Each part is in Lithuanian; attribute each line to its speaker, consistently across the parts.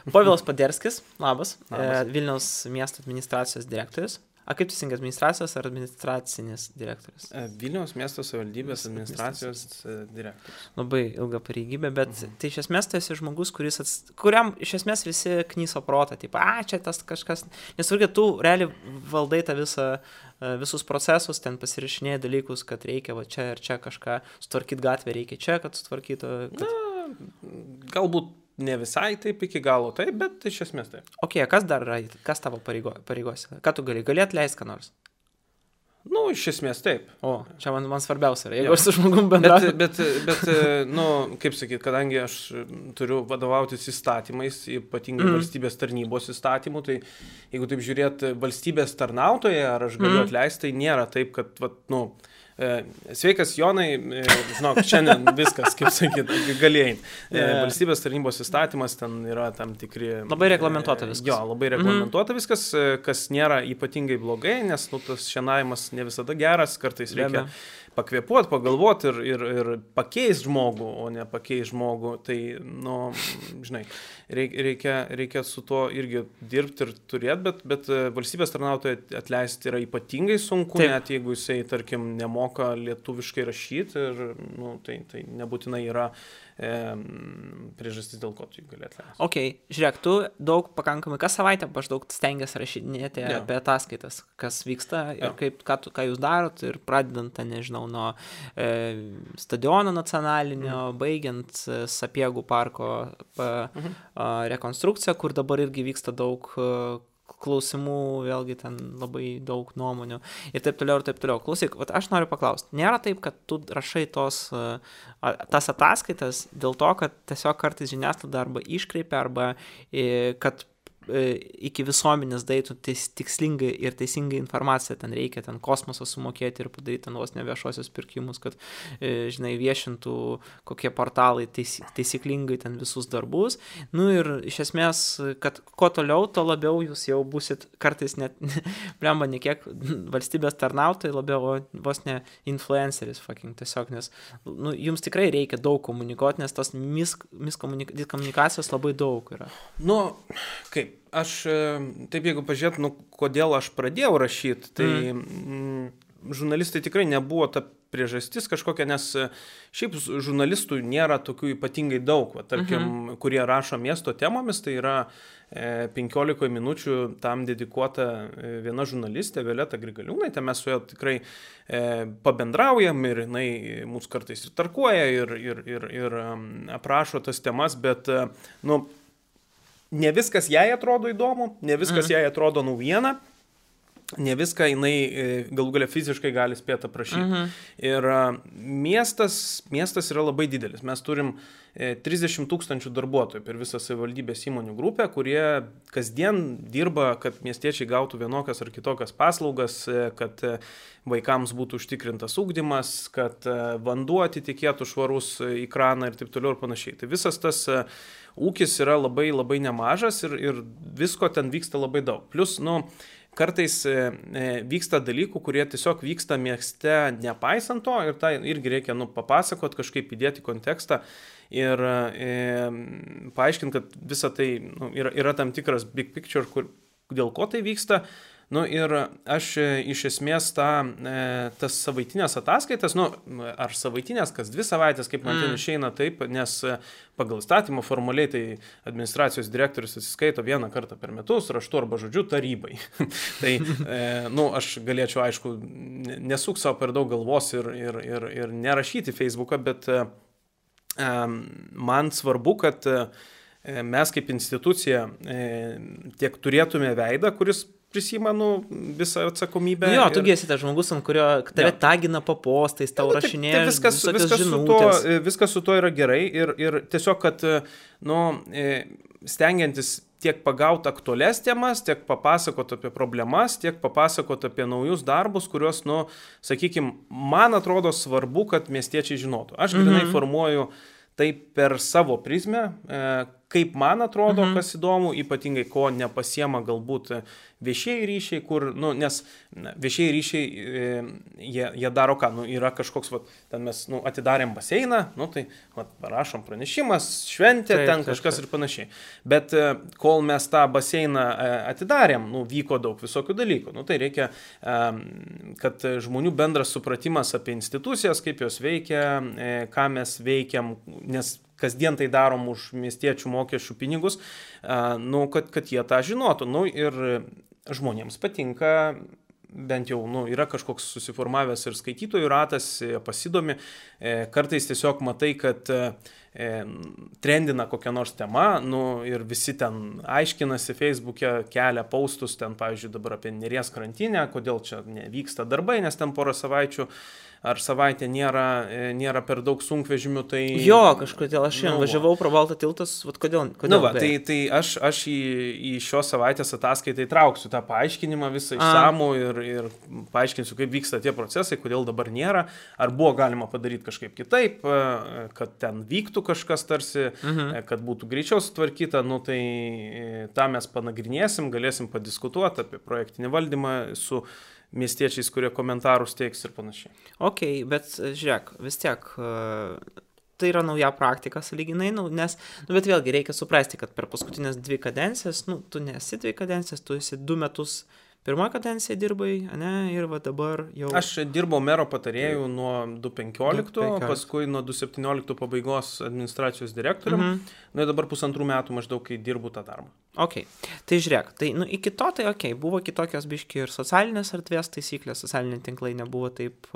Speaker 1: Povilas Paderskis, labas. Vilniaus miesto administracijos direktorius. Kaip teisingai, administracijos ar administracinis direktorius?
Speaker 2: Vilniaus miesto savivaldybės administracijos direktorius.
Speaker 1: Labai ilga pareigybė, bet tai iš esmės tai esi žmogus, kuriam iš esmės visi knyso protą, taip, čia tas kažkas, nes irgi tu realiai valdai tą visus procesus, ten pasirašinėjai dalykus, kad reikia va čia ir čia kažką sutvarkyti gatvę, reikia čia, kad sutvarkytų.
Speaker 2: Galbūt ne visai taip iki galo, taip, bet iš esmės taip.
Speaker 1: Kas dar yra, kas tavo pareigose? Ką tu gali atleisti ką nors?
Speaker 2: Iš esmės taip.
Speaker 1: Čia man svarbiausia yra, jeigu aš su žmogum bendrauju.
Speaker 2: Bet, kaip sakyt, kadangi aš turiu vadovautis įstatymais, ypatingai valstybės tarnybos įstatymų, tai jeigu taip žiūrėt valstybės tarnautoje, ar aš galiu atleisti, tai nėra taip, kad, sveikas Jonai, žinok, šiandien viskas, kaip sakyt, galėjai. Valstybės tarnybos įstatymas, ten yra tam tikri...
Speaker 1: Labai reglamentuota viskas.
Speaker 2: Jo, labai reglamentuota viskas, kas nėra ypatingai blogai, nes tas šienavimas ne visada geras, kartais reikia pakvėpuoti, pagalvoti ir pakeisti žmogų, o ne pakeisti žmogų. Tai, žinai, reikia su to irgi dirbti ir turėti, bet valstybės tarnautojai atleisti yra ypatingai sunku, net jeigu jisai, tarkim, nemoka lietuviškai rašyti ir, tai nebūtinai yra priežastis, dėl ko tu jį gali atleisti.
Speaker 1: Žiūrėk, tu daug pakankamai, kas savaitę maždaug stengiasi rašinėti apie ataskaitas, kas vyksta ir ką jūs darot ir pradedant, nežinau, nuo stadiono nacionalinio, baigiant Sapiegų parko rekonstrukciją, kur dabar irgi vyksta daug klausimų, vėlgi ten labai daug nuomonių ir taip toliau. Klausyk, aš noriu paklausti, nėra taip, kad tu rašai tas ataskaitas dėl to, kad tiesiog kartais žiniasklaida arba iškreipia, arba kad iki visuomenės daitų tikslingai ir teisingai informaciją, ten reikia ten kosmosą sumokėti ir padaryti ten vos ne viešosios pirkimus, kad, žinai, viešintų kokie portalai taisyklingai ten visus darbus. Ir iš esmės, kad kuo toliau, to labiau jūs jau busit kartais net, blemba, ne kiek valstybės tarnautojai, labiau vos ne influenceris, tiesiog, nes jums tikrai reikia daug komunikuoti, nes tos miskomunikacijos labai daug yra.
Speaker 2: Kaip? Aš, taip jeigu pažiūrėt, kodėl aš pradėjau rašyti, tai žurnalistai tikrai nebuvo ta priežastis kažkokia, nes šiaip žurnalistų nėra tokių ypatingai daug, tarkim, kurie rašo miesto temomis, tai yra 15 minučių tam dedikuota viena žurnalistė, Violeta Grigaliūnaitė, mes su ja tikrai pabendraujam ir jinai mūsų kartais ir tarkuoja ir aprašo tas temas, bet, ne viskas jai atrodo įdomu, ne viskas jai atrodo naujiena, ne viską jinai galų galia fiziškai gali spėti aprašyti. Ir miestas yra labai didelis. Mes turim 30 000 darbuotojų per visą savivaldybės įmonių grupę, kurie kasdien dirba, kad miestiečiai gautų vienokias ar kitokias paslaugas, kad vaikams būtų užtikrintas ugdymas, kad vanduo atitikėtų švarus į kraną ir taip toliau ir panašiai. Tai visas tas ūkis yra labai, labai nemažas ir visko ten vyksta labai daug. Plus, kartais vyksta dalykų, kurie tiesiog vyksta mieste nepaisant to ir tai irgi reikia papasakot, kažkaip įdėti kontekstą ir paaiškinti, kad visa tai yra tam tikras big picture, dėl ko tai vyksta. Ir aš iš esmės tas savaitinės ataskaitas, ar savaitinės, kas 2 savaitės, kaip man ten išeina taip, nes pagal įstatymą formaliai tai administracijos direktorius atsiskaito 1 kartą per metus, raštu arba žodžiu tarybai. Tai, aš galėčiau, aišku, nesuk savo per daug galvos ir nerašyti Facebooką, bet man svarbu, kad mes kaip institucija tiek turėtume veidą, kuris prisima visą atsakomybę.
Speaker 1: Jo, tu esi tas žmogus, ant kurio tave tagina po postais, tau rašinėja visokias žinutės.
Speaker 2: Viskas su to yra gerai ir tiesiog, kad stengiantis tiek pagauti aktualias temas, tiek papasakoti apie problemas, tiek papasakoti apie naujus darbus, kuriuos, sakykime, man atrodo svarbu, kad miestiečiai žinotų. Aš grinai formuoju tai per savo prizmę, kaip man atrodo, kas įdomu, ypatingai ko nepasiema galbūt viešieji ryšiai, kur, nes viešieji ryšiai, jie daro ką, yra kažkoks, ten mes, atidarėm baseiną, tai, parašom pranešimas, šventė, ten kažkas ir panašiai. Bet kol mes tą baseiną atidarėm, vyko daug visokių dalykų. Tai reikia, kad žmonių bendras supratimas apie institucijas, kaip jos veikia, ką mes veikiam, nes kasdien tai darom už miestiečių mokesčių pinigus, kad jie tą žinotų. Ir žmonėms patinka, bent jau yra kažkoks susiformavęs ir skaitytojų ratas, pasidomi, kartais tiesiog matai, kad trendina kokią nors temą, ir visi ten aiškinasi Facebook'e, kelia postus, ten, pavyzdžiui, dabar apie Neries krantinę, kodėl čia nevyksta darbai, nes ten porą savaičių ar savaitę nėra per daug sunkvežimių, tai...
Speaker 1: Jo, kažkodėl aš važiavau pro Baltą tiltas, kodėl?
Speaker 2: Tai aš į šios savaitės ataskaitai trauksiu tą paaiškinimą visą išsamų ir paaiškinsiu, kaip vyksta tie procesai, kodėl dabar nėra, ar buvo galima padaryti kažkaip kitaip, kad ten vyktų kažkas tarsi, kad būtų greičiau sutvarkyta, tai tą mes panagrinėsim, galėsim padiskutuoti apie projektinį valdymą su miestiečiais, kurie komentarus teiks ir panašiai.
Speaker 1: Ok, bet žiūrėk, vis tiek tai yra nauja praktika sąlyginai, bet vėlgi reikia suprasti, kad per paskutinės 2 kadencijas, tu nesi 2 kadencijas, tu esi 2 metus pirmoje kadencijoje dirbai, ir dabar jau...
Speaker 2: Aš dirbau mero patarėjų nuo 2015, paskui nuo 2017 pabaigos administracijos direktorium, ir dabar 1,5 metų maždaug, kai dirbu tą darbą.
Speaker 1: Ok, tai žiūrėk, tai iki to tai ok, buvo kitokios biški ir socialinės erdvės taisyklės, socialiniai tinklai nebuvo taip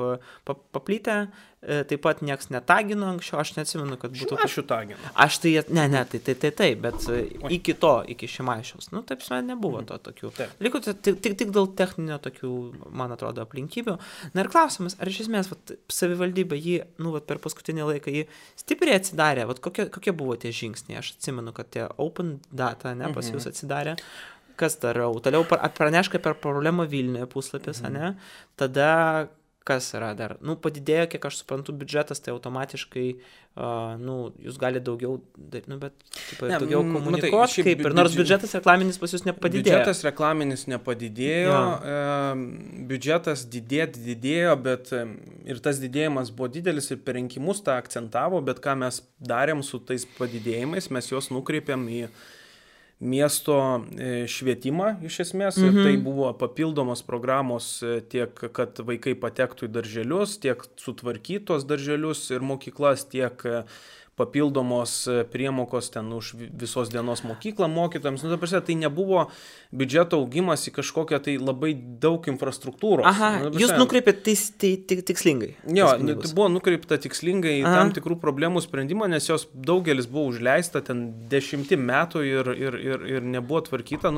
Speaker 1: paplytę, taip pat nieks netagino anksčiau, aš neatsimenu, kad būtų...
Speaker 2: Šimašių tagino.
Speaker 1: Aš tai, tai, bet iki Šimašiaus, taip nebuvo to tokių. Liko tik dėl techninio tokių, man atrodo, aplinkybių. Na ir klausimas, ar iš esmės savivaldybė jį, per paskutinį laiką jį stipriai atsidarė, kokie buvo tie žingsniai, aš atsimenu, kad tie open data, pas jūs atsidarė, kas darau, toliau pranešk apie problemą Vilniuje puslapis, tada kas yra dar, padidėjo, kiek aš suprantu, biudžetas, tai automatiškai, jūs galite daugiau, bet daugiau komunikuoti, kaip ir nors biudžetas reklaminis pas jūs nepadidėjo.
Speaker 2: Biudžetas reklaminis nepadidėjo, biudžetas didėjo, bet ir tas didėjimas buvo didelis ir per rinkimus tą akcentavo, bet ką mes darėm su tais padidėjimais, mes juos nukreipėm į miesto švietimą iš esmės ir tai buvo papildomos programos tiek, kad vaikai patektų į darželius, tiek sutvarkytos darželius ir mokyklas, tiek papildomos priemokos ten už visos dienos mokyklą mokytojams. Tai nebuvo biudžeto augimas į kažkokią tai labai daug infrastruktūros.
Speaker 1: Jūs nukreipėte tikslingai.
Speaker 2: Jo, tai buvo nukreipta tikslingai į tam tikrų problemų sprendimą, nes jos daugelis buvo užleista ten 10 metų ir nebuvo tvarkyta.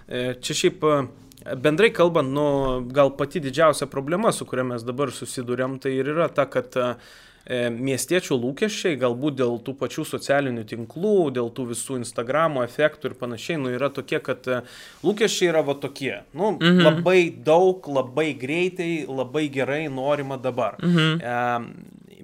Speaker 2: Čia šiaip bendrai kalbant, gal pati didžiausia problema, su kuria mes dabar susiduriam, tai ir yra ta, kad miestiečių lūkesčiai, galbūt dėl tų pačių socialinių tinklų, dėl tų visų Instagramo efektų ir panašiai, yra tokie, kad lūkesčiai yra tokie. Labai daug, labai greitai, labai gerai norima dabar.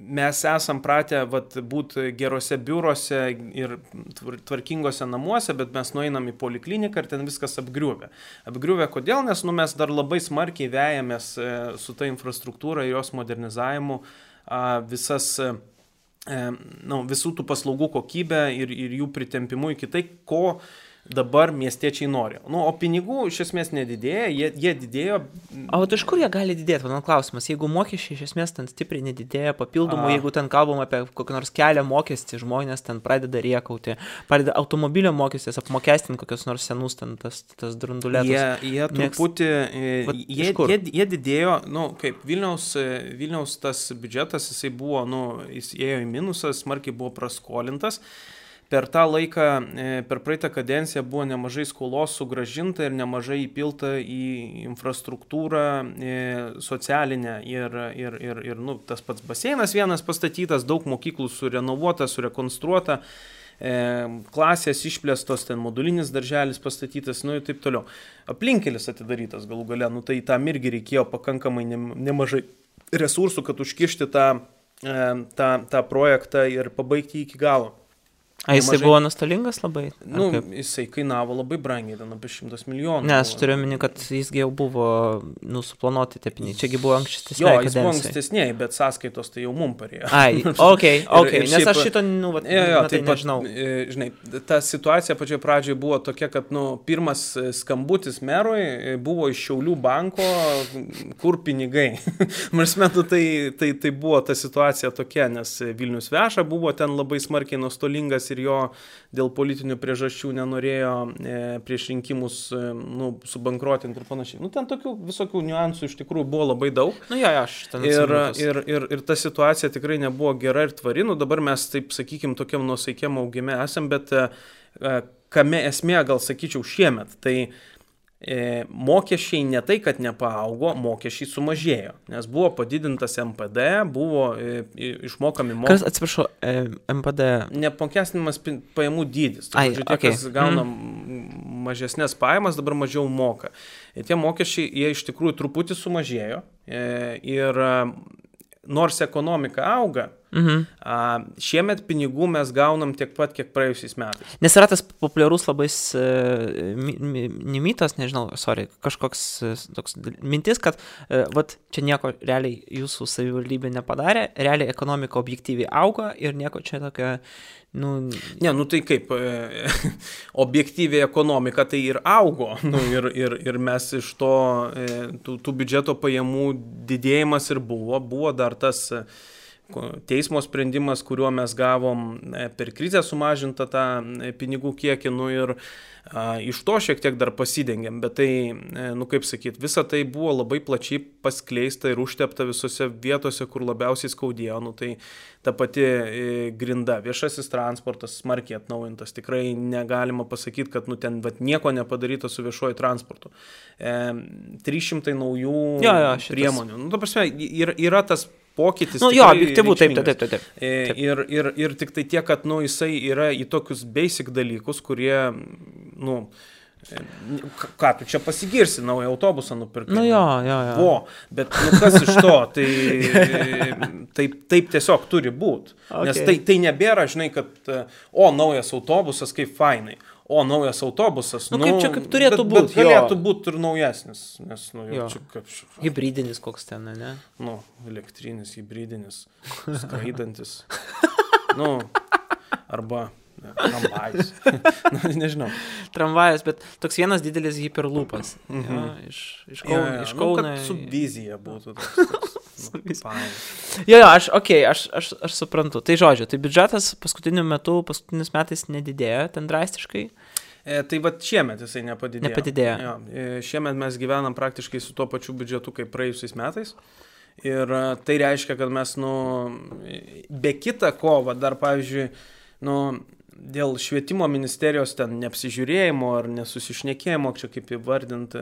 Speaker 2: Mes esam pratę būti gerose biurose ir tvarkingose namuose, bet mes nueinam į polikliniką ir ten viskas apgriuvę. Apgriuvę kodėl? Nes mes dar labai smarkiai vejamės su ta infrastruktūra ir jos modernizavimu visų tų paslaugų kokybę ir jų pritempimu iki tai, ko dabar miestiečiai nori. O pinigų iš esmės nedidėja, jie didėjo.
Speaker 1: O iš kur jie gali didėti? Mano klausimas, jeigu mokesčiai iš esmės ten stipriai nedidėja, papildomų, jeigu ten kalbam apie kokį nors kelio mokestį, žmonės ten pradeda riekauti, pradeda automobilio mokestis apmokestinti kokios nors senus ten tas drundulėtus.
Speaker 2: Jie truputį, jie didėjo, kaip Vilniaus tas biudžetas, jisai buvo, jis ėjo į minusą, smarkiai buvo praskolintas. Per tą laiką, per praeitą kadenciją buvo nemažai skolos sugrąžinta ir nemažai įpilta į infrastruktūrą socialinę ir tas pats baseinas vienas pastatytas, daug mokyklų surenovuota, surekonstruota, klasės išplėstos, ten modulinis darželis pastatytas, ir taip toliau. Aplinkelis atidarytas galų gale, tai tam irgi reikėjo pakankamai nemažai resursų, kad užkišti tą projektą ir pabaigti iki galo.
Speaker 1: A jisai buvo nuostolingas labai?
Speaker 2: Nu, jisai kainavo labai brangiai, ten apie 100 milijonų.
Speaker 1: Ne, aš turiu omeny, kad jisgi jau buvo suplanuoti tie pinigai. Čiagi buvo ankstesnė.
Speaker 2: Jo, jis buvo ankstesniai, bet sąskaitos tai jau mum parėjo.
Speaker 1: Ai, okei, nes aš šito,
Speaker 2: tai nežinau. Žinai, ta situacija pačioje pradžioje buvo tokia, kad, pirmas skambutis merui buvo iš Šiaulių banko, kur pinigai. Mes metu tai buvo ta situacija tokia, nes Vilnius Veša buvo ten labai smarkiai nuostolingas ir jo dėl politinių priežasčių nenorėjo prieš rinkimus subankruotinti ir panašiai. Ten tokių visokių niuansų iš tikrųjų buvo labai daug. Ir ta situacija tikrai nebuvo gera ir tvari. Dabar mes, taip sakykim, tokiam nuosaikiam augime esam, bet kame esmė, gal sakyčiau, šiemet, tai mokesčiai ne tai, kad nepaaugo, mokesčiai sumažėjo, nes buvo padidintas MPD, buvo išmokami mokesčiai.
Speaker 1: Kas, atsiprašau, MPD?
Speaker 2: Neapmokestinimas pajamų dydis. Tie, kas gauna mažesnės pajamas, dabar mažiau moka. Ir tie mokesčiai, jie iš tikrųjų truputį sumažėjo ir nors ekonomika auga, šiemet pinigų mes gaunam tiek pat, kiek praėjusiais metais.
Speaker 1: Nes yra tas populiarus labai nimitas, kažkoks toks mintis, kad čia nieko realiai jūsų savivaldybė nepadarė, realiai ekonomika objektyviai auga ir nieko čia tokia,
Speaker 2: tai kaip, objektyviai ekonomika tai ir augo, ir mes iš to, tų biudžeto pajamų didėjimas ir buvo dar tas teismo sprendimas, kuriuo mes gavom per krizę sumažintą tą pinigų kiekį, ir iš to šiek tiek dar pasidengėm, bet tai, kaip sakyt, visa tai buvo labai plačiai paskleista ir užtepta visose vietose, kur labiausiai skaudėjo, tai ta pati grinda, viešasis transportas smarkiai atnaujintas, tikrai negalima pasakyti, kad ten nieko nepadaryta su viešuoju transportu. 300 naujų priemonių. Ta prasme, yra tas pokytis.
Speaker 1: Objektyvu, taip.
Speaker 2: Ir tik tai tiek, kad, jisai yra į tokius basic dalykus, kurie, ką tu čia pasigirsi, naują autobusą nupirkai. Bet kas iš to, taip tiesiog turi būti. Nes tai nebėra, žinai, kad, naujas autobusas, kaip fainai. Naujas autobusas,
Speaker 1: kaip turėtų būti.
Speaker 2: Bet galėtų būti ir naujesnis, nes,
Speaker 1: hybridinis koks ten, ne?
Speaker 2: Elektrinis, hybridinis, skraidantis, arba tramvajus, nežinau.
Speaker 1: Tramvajus, bet toks vienas didelis hiperlūpas, iš Kauno.
Speaker 2: Kad su vizija būtų
Speaker 1: aš suprantu. Tai žodžiu, tai biudžetas paskutiniais metais nedidėjo, ten drastiškai.
Speaker 2: Tai šiemet jisai nepadidėjo. Šiemet mes gyvenam praktiškai su tuo pačiu biudžetu kaip praėjusiais metais. Ir tai reiškia, kad mes, be kita ko, dar pavyzdžiui, dėl švietimo ministerijos ten neapsižiūrėjimo ar nesusišnekėjimo, čia kaip įvardinti,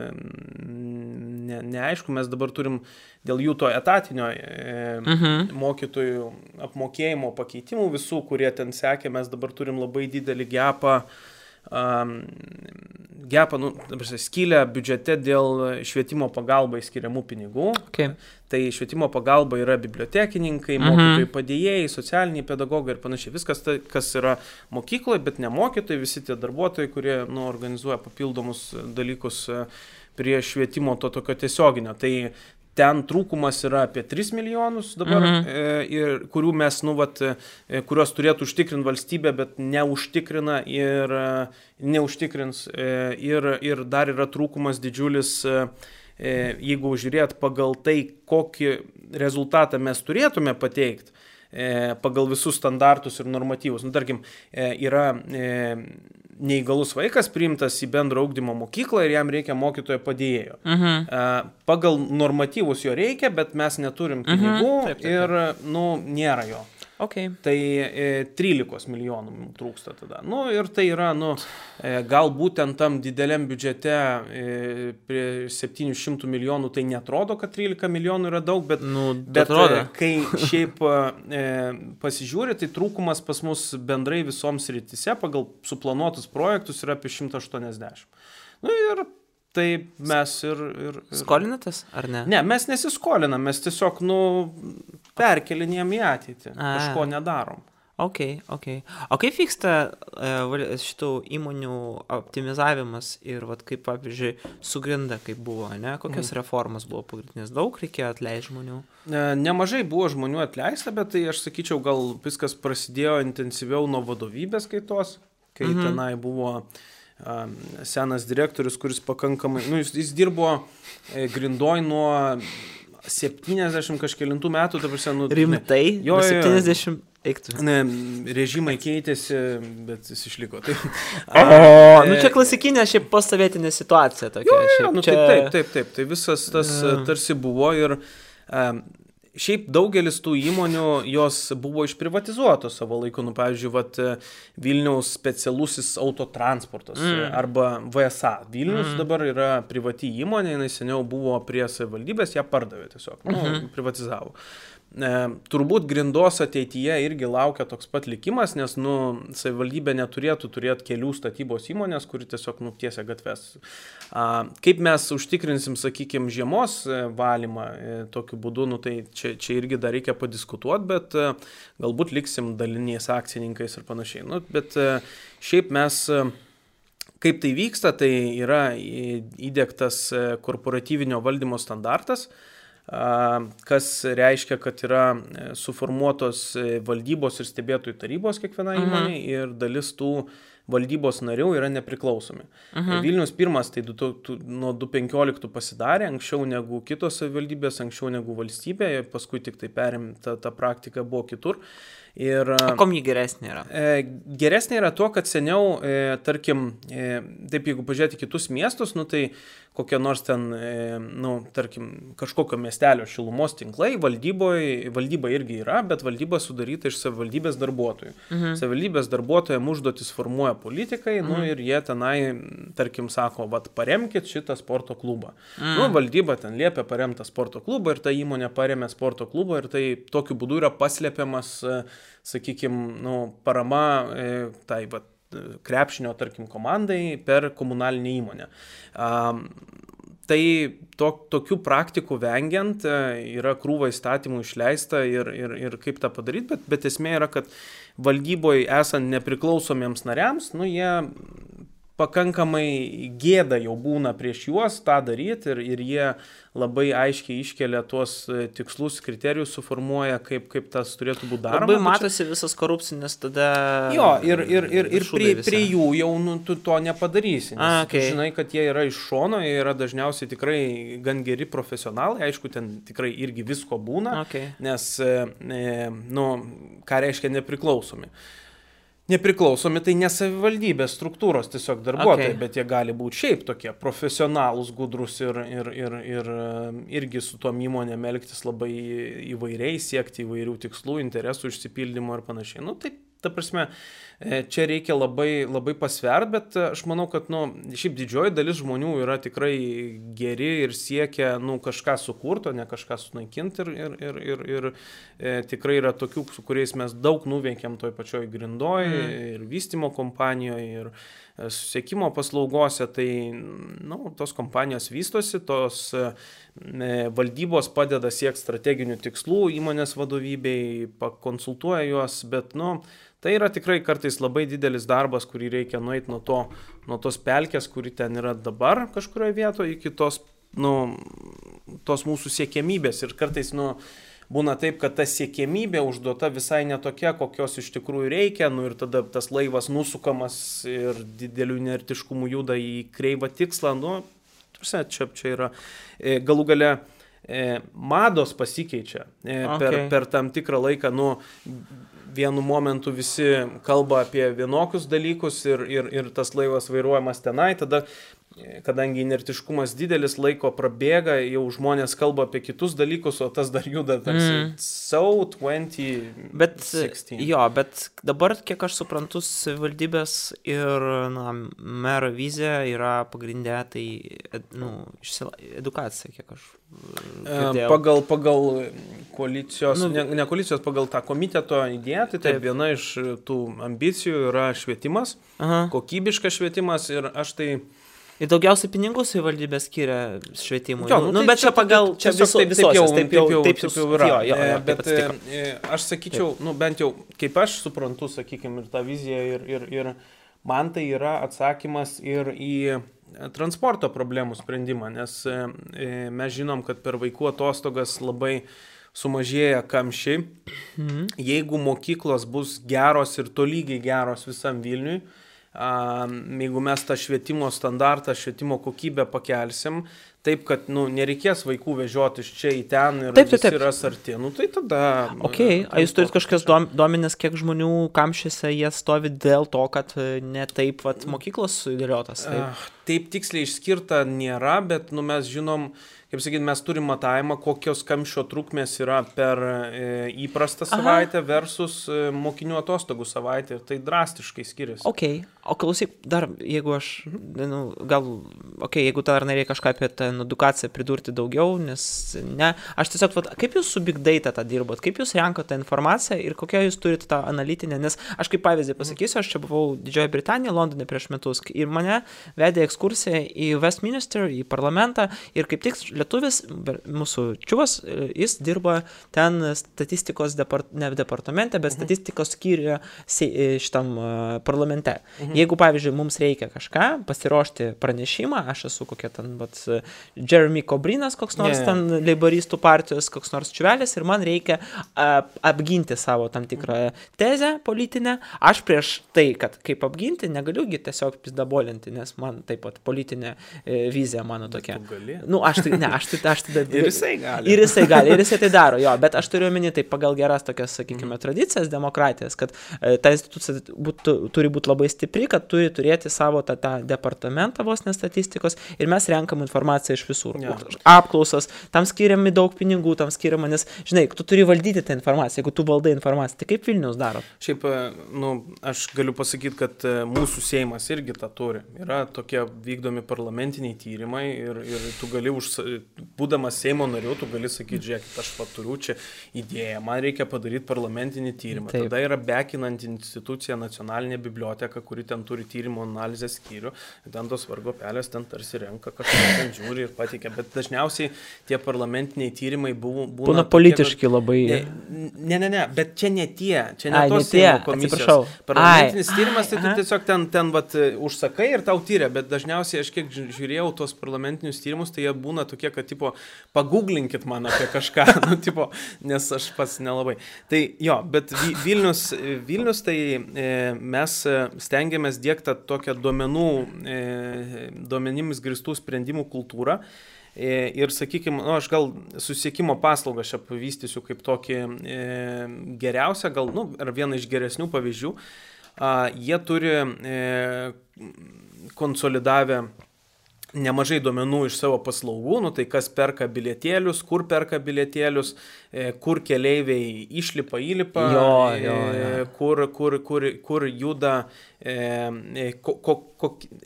Speaker 2: neaišku, mes dabar turim dėl jų to etatinio mokytojų apmokėjimo pakeitimų visų, kurie ten sekė, mes dabar turim labai didelį gepą, skylę biudžete dėl švietimo pagalbai skiriamų pinigų. Tai švietimo pagalba yra bibliotekininkai, mokytojai padėjėjai, socialiniai pedagogai ir panašiai. Viskas tai, kas yra mokykloje, bet ne mokytojai, visi tie darbuotojai, kurie organizuoja papildomus dalykus prie švietimo to tokio tiesioginio. Tai ten trūkumas yra apie 3 milijonus dabar, ir kurių mes, kurios turėtų užtikrinti valstybė, bet neužtikrina ir neužtikrins. Ir dar yra trūkumas didžiulis, jeigu žiūrėt pagal tai, kokį rezultatą mes turėtume pateikti, pagal visus standartus ir normatyvus. Tarkim, yra neįgalus vaikas priimtas į bendro ugdymo mokyklą ir jam reikia mokytojo padėjėjo. Pagal normatyvus jo reikia, bet mes neturim pinigų ir nėra jo. Tai 13 milijonų trūksta tada. Ir tai yra, galbūt ten tam dideliam biudžete prie 700 milijonų tai netrodo, kad 13 milijonų yra daug, bet kai šiaip pasižiūri, tai trūkumas pas mus bendrai visoms srityse pagal suplanuotus projektus yra apie 180. Ir tai mes ir...
Speaker 1: Skolinatės, ar ne?
Speaker 2: Ne, mes nesiskolinam, mes tiesiog, perkelinėjom į ateitį, kažko nedarom.
Speaker 1: Okay. O kaip vyksta šitų įmonių optimizavimas ir vat, kaip, pavyzdžiui, su Grinda, kaip buvo, ne? Kokios reformos buvo pagrindinės? Daug reikėjo atleisti žmonių?
Speaker 2: Nemažai buvo žmonių atleista, bet tai aš sakyčiau, gal viskas prasidėjo intensyviau nuo vadovybės kaitos, kai tenai buvo senas direktorius, kuris pakankamai, jis dirbo Grindoj nuo 70 kažkelintų metų, ta prasme,
Speaker 1: Rimtai?
Speaker 2: Jo,
Speaker 1: 70 eiktų.
Speaker 2: Režimai keitėsi, bet jis išliko. Tai,
Speaker 1: čia klasikinė šiaip postsovietinė situacija tokia.
Speaker 2: Taip. Tai visas tas tarsi buvo ir šiaip daugelis tų įmonių, jos buvo išprivatizuotos savo laiku. Pavyzdžiui, Vilniaus specialusis autotransportas arba VSA. Vilnius dabar yra privati įmonė, jinai seniau buvo prie savivaldybės, ją pardavė tiesiog, privatizavo. Turbūt Grindos ateityje irgi laukia toks pat likimas, nes savivaldybė neturėtų turėti kelių statybos įmonės, kuri tiesiog tiesia gatves. Kaip mes užtikrinsim, sakykime, žiemos valymą tokiu būdu, tai čia irgi dar reikia padiskutuoti, bet galbūt liksim daliniais akcininkais ir panašiai. Bet šiaip mes, kaip tai vyksta, tai yra įdiegtas korporatyvinio valdymo standartas, kas reiškia, kad yra suformuotos valdybos ir stebėtojų tarybos kiekviena įmonė ir dalis tų valdybos narių yra nepriklausomi. Vilnius pirmas tai nuo 2015 pasidarė, anksčiau negu kitos savivaldybės, anksčiau negu valstybė, paskui tik tai perimta ta praktika buvo kitur.
Speaker 1: Kom jį geresnė yra?
Speaker 2: Geresnė yra tuo, kad seniau, tarkim, taip jeigu pažiūrėti kitus miestus, tai kokie nors ten, tarkim, kažkokio miestelio šilumos tinklai, valdyba irgi yra, bet valdyba sudaryta iš savivaldybės darbuotojų. Savivaldybės darbuotojams užduotis formuoja politikai, ir jie tenai, tarkim, sako, paremkit šitą sporto klubą. Valdyba ten liepia paremtą sporto klubą ir ta įmonė paremė sporto klubą ir tai tokiu būdu yra paslėpiamas, sakykime, parama tai krepšinio, tarkim, komandai per komunalinę įmonę. Tai tokių praktikų vengiant yra krūva įstatymų išleista ir kaip tą padaryti, bet esmė yra, kad valdyboje esant nepriklausomiems nariams, jie pakankamai gėda jau būna prieš juos tą daryti ir jie labai aiškiai iškelia tuos tikslus, kriterijus suformuoja, kaip tas turėtų būti daroma.
Speaker 1: Labai matosi visas korupcinis tada...
Speaker 2: Jo, ir prie jų jau tu to nepadarysi. Nes tu žinai, kad jie yra iš šono, jie yra dažniausiai tikrai gan geri profesionalai, aišku, ten tikrai irgi visko būna, nes, ką reiškia nepriklausomi. Nepriklausomi tai ne savivaldybės struktūros tiesiog darbuotojai, bet jie gali būti šiaip tokie profesionalūs, gudrus ir irgi su tom įmonėm elgtis labai įvairiai, siekti įvairių tikslų, interesų išsipildymo ir panašiai. Tai ta prasme, čia reikia labai, labai pasvert, bet aš manau, kad šiaip didžioji dalis žmonių yra tikrai geri ir siekia kažką sukurto, ne kažką sunaikinti ir tikrai yra tokių, su kuriais mes daug nuveikėm toj pačioj Grindoj ir vystymo kompanijoje ir susiekimo paslaugose, tai tos kompanijos vystosi, tos valdybos padeda siekti strateginių tikslų įmonės vadovybei, pakonsultuoja juos, bet tai yra tikrai kartais labai didelis darbas, kurį reikia nueiti nuo tos pelkės, kuri ten yra dabar kažkurioje vietoje, iki tos mūsų siekiamybės. Ir kartais būna taip, kad ta siekiamybė užduota visai netokia, kokios iš tikrųjų reikia, ir tada tas laivas nusukamas ir dideliu inertiškumu juda į kreivą tikslą. Čia yra galų gale mados pasikeičia per tam tikrą laiką. Vienu momentu visi kalba apie vienokius dalykus ir tas laivas vairuojamas tenai, tada, kadangi inertiškumas didelis, laiko prabėga, jau žmonės kalba apie kitus dalykus, o tas dar juda tarsi 2016.
Speaker 1: Bet dabar, kiek aš suprantu, savivaldybės ir mero vizija yra pagrindė, tai edukacija, kiek aš girdėjau.
Speaker 2: Pagal koalicijos, ne koalicijos, pagal tą komiteto idėją, tai viena iš tų ambicijų yra švietimas, kokybiškas švietimas ir aš tai
Speaker 1: Ir daugiausiai pinigų savivaldybė skiria švietimui.
Speaker 2: Jo,
Speaker 1: nu, bet čia pagal, čia visos, taip jau
Speaker 2: yra. Bet aš sakyčiau, bent jau, kaip aš suprantu, sakykime, ir tą viziją, ir man tai yra atsakymas ir į transporto problemų sprendimą, nes mes žinom, kad per vaikų atostogas labai sumažėja kamščiai. Jeigu mokyklos bus geros ir tolygiai geros visam Vilniui, jeigu mes tą švietimo standartą, švietimo kokybę pakelsim, taip, kad nereikės vaikų vežioti iš čia į ten ir visi yra arti, tai tada...
Speaker 1: Ok, jūs turit kažkokias duomenis, kiek žmonių kamščiuose jie stovi dėl to, kad ne taip mokyklos sudėliotas?
Speaker 2: Taip tiksliai išskirta nėra, bet mes žinom, kaip sakyti, mes turim matavimą, kokios kamščio trukmės yra per įprastą savaitę versus mokinių atostogų savaitę ir tai drastiškai skiriasi.
Speaker 1: Ok, o klausyk, dar jeigu aš, jeigu dar nereikia kažką apie tą edukaciją pridurti daugiau, nes aš tiesiog, kaip jūs su Big Data tą dirbot, kaip jūs renkate informaciją ir kokią jūs turite tą analitinę, nes aš kaip pavyzdį pasakysiu, aš čia buvau Didžiojoje Britanijoje, Londone prieš metus ir mane vedė ekskursiją į Westminster, į parlamentą ir kaip tik lietuvis, mūsų čiuvas, jis dirba ten statistikos departamente, bet statistikos skyriuje šitam parlamente. Jeigu, pavyzdžiui, mums reikia kažką, pasiruošti pranešimą, aš esu kokia ten, Jeremy Corbrynas, koks nors ten leiboristų partijos, koks nors čiuvelis ir man reikia apginti savo tam tikrą tezę politinę. Aš prieš tai, kad kaip apginti, negaliugi tiesiog pizdabolinti, nes man taip pat politinė vizija mano tokia. Aš tada...
Speaker 2: Ir jisai gali.
Speaker 1: Ir jisai tai daro, jo, bet aš turiu omeny tai pagal geras tokias, sakykime, tradicijas, demokratijas, kad ta institucija turi būti labai stipri, kad turi turėti savo tą departamentą vos nestatistikos ir mes renkam informaciją iš visur. Apklausas, tam skiriami daug pinigų, tam skiriama, nes, žinai, tu turi valdyti tą informaciją, jeigu tu valdai informaciją, tai kaip Vilnius daro?
Speaker 2: Šiaip, aš galiu pasakyti, kad mūsų Seimas irgi tą turi. Yra tokie vykdomi parlamentiniai tyrimai ir tu gali būdamas Seimo nariu, tu gali sakyti, žiūrėkit, aš turiu čia idėją, man reikia padaryti parlamentinį tyrimą. Taip. Tada yra bekinanti institucija Nacionalinė biblioteka, kuri ten turi tyrimo analizės skyrių, ten tos vargo pelės ten tarsi renka, kažką ten žiūri ir pateikia, bet dažniausiai tie parlamentiniai tyrimai būna
Speaker 1: politiški kad... labai.
Speaker 2: Ne, bet čia ne tos Seimo komisijos. Parlamentinis tyrimas, tai tu tiesiog ten užsakai ir tau tyria, bet dažniausiai aš kiek žiūrėjau tos parlamentinius tyrimus, tai jie būna tokie, kad paguglinkit man apie kažką, nes aš pats nelabai. Tai jo, bet Vilnius tai mes stengiamės diegti tokią duomenimis grįstų sprendimų kultūrą. Ir, sakykime, aš gal susisiekimo paslaugą šią pavystysiu kaip tokį geriausią, ar vieną iš geresnių pavyzdžių. Jie turi konsolidavę nemažai duomenų iš savo paslaugų, tai kas perka bilietėlius, kur keleiviai išlipa, įlipa, kur juda,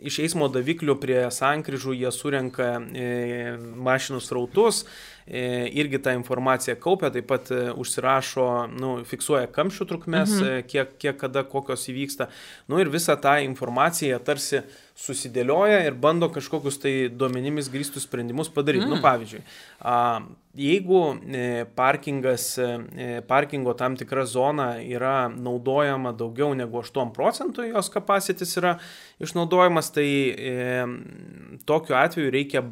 Speaker 2: iš eismo daviklių prie sankryžų jie surenka mašinų srautus, irgi tą informaciją kaupia, taip pat užsirašo, fiksuoja kamščių trukmes, kiek kada kokios įvyksta. Ir visą tą informaciją tarsi susidėlioja ir bando kažkokius tai duomenimis grįstus sprendimus padaryti. Pavyzdžiui, jeigu parkingo tam tikra zona yra naudojama daugiau negu 8%, jos capacities yra išnaudojamas, tai tokiu atveju reikia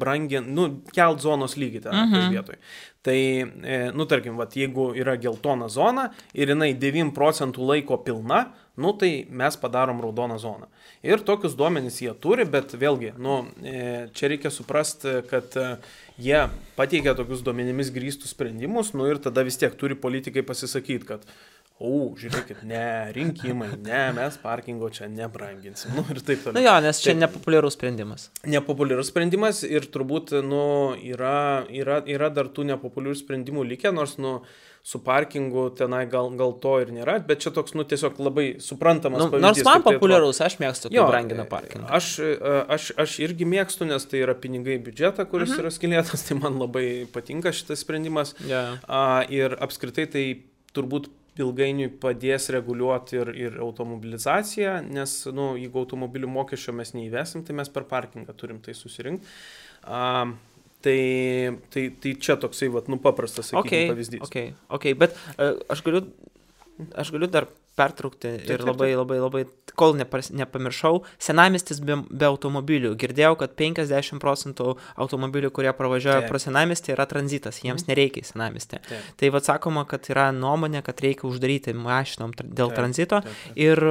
Speaker 2: kelt zonos lygį tą vietoj. Tai, tarkim, jeigu yra geltona zona ir jinai 9% laiko pilna, tai mes padarom raudoną zoną. Ir tokius duomenys jie turi, bet vėlgi, čia reikia suprasti, kad jie pateikia tokius duomenimis grįstus sprendimus, ir tada vis tiek turi politikai pasisakyti, kad žiūrėkit, rinkimai, mes parkingo čia nebranginsim. Ir taip toliau.
Speaker 1: Nes čia nepopuliarus sprendimas.
Speaker 2: Nepopuliarus sprendimas ir turbūt, yra dar tų nepopuliarių sprendimų likę, nors, su parkingu tenai gal to ir nėra, bet čia toks, tiesiog labai suprantamas pavyzdys.
Speaker 1: Nors man populiarus, aš mėgstu, kai brangina parkingą.
Speaker 2: Aš irgi mėgstu, nes tai yra pinigai biudžetą, kuris yra skilėtas, tai man labai patinka šitas sprendimas. Ir apskritai tai turbūt ilgainiui padės reguliuoti ir automobilizaciją, nes, jeigu automobilių mokesčio mes neįvesim, tai mes per parkingą turim tai susirinkti. Tai čia toksai, paprastas, sakykime, pavyzdys.
Speaker 1: Okay, bet aš galiu dar pertraukti ir labai, kol nepamiršau, senamiestis be automobilių. Girdėjau, kad 50% automobilių, kurie pravažiuoja pro senamiestį, yra tranzitas, jiems nereikia į senamiestį. Tai sakoma, kad yra nuomonė, kad reikia uždaryti mašinom dėl tranzito. Ir